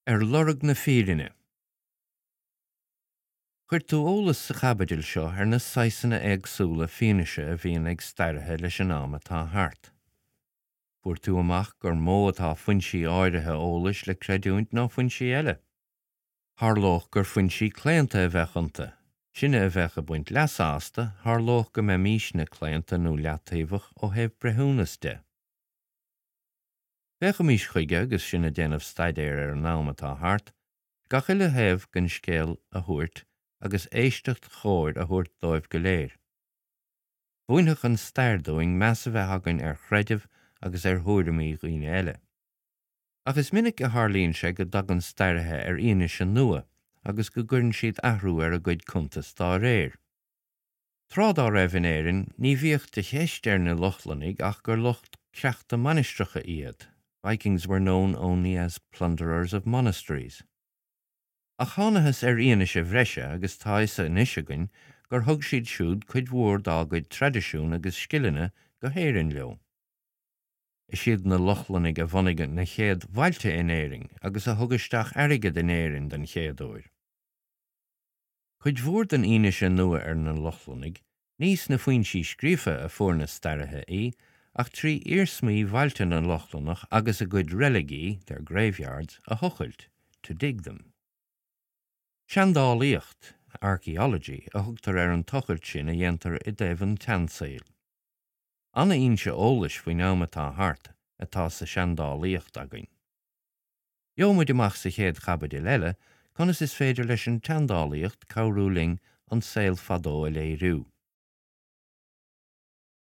Ar lorg na fírinne. Chuir tú eolas sa chaibidil seo ar na saghsanna éagsúla fianaise a bhíonn ag staraithe leis an am atá thart. Fuair tú amach gur mó atá foinsí áirithe eolais le creidiúint ná foinsí eile. Tharlódh gur foinsí claonta a bheadh iontu, sinne a bheadh ag baint leasa astu, tharlódh go mbeimísne claonta nó leataobhach ó thaobh breithiúnas de. Féachaimis chuige agus sinn ag déanamh staidéir ar an am atá thart, gach uile thaobh den scéal a thabhairt agus éisteacht chóir a thabhairt dóibh go léir. Mhúinfeadh an stair dúinn meas a bheith againn ar chreideamh agus ar thuairimí dhaoine eile. Ach is minic a tharlaíonn sé go dtagann staraithe ar fhianaise nua agus go gcuireann siad athrú ar a gcuid cuntas dá réir. Tráth dá raibh in Éirinn ní bhíodh de cheist ar na Lochlannaigh ach gur lucht creachta mainistreacha iad, Vikings were known only as plunderers of monasteries. Ach thánathas ar fhianaise bhreise agus tá fhios anois againn gur thug siad siúd cuid mhór dá gcuid traidisiún agus scileanna go hÉirinn leo. Is iad na Lochlannaigh a bhunaigh na chéad bhailte in Éirinn agus a thug isteach airgead in Éirinn den chéad uair. Cuid mhór den fhianaise nua ar na Lochlannaigh, ní sna foinsí scríofa a fuair na staraithe í, ach trí iarsmaí bhailte na Lochlannach agus a gcuid reiligí, their graveyards, a thochailt, to dig them. Seandálaíocht, archaeology, a thugtar ar an tochailt sin a dhéantar i dtaobh an tseansaoil. An-fhoinse eolais faoin am atá thart atá sa seandálaíocht againn. Gheobhaidh muid amach sa chéad chaibidil eile conas is féidir leis an tseandálaíocht cabhrú linn an saol fadó a léiriú.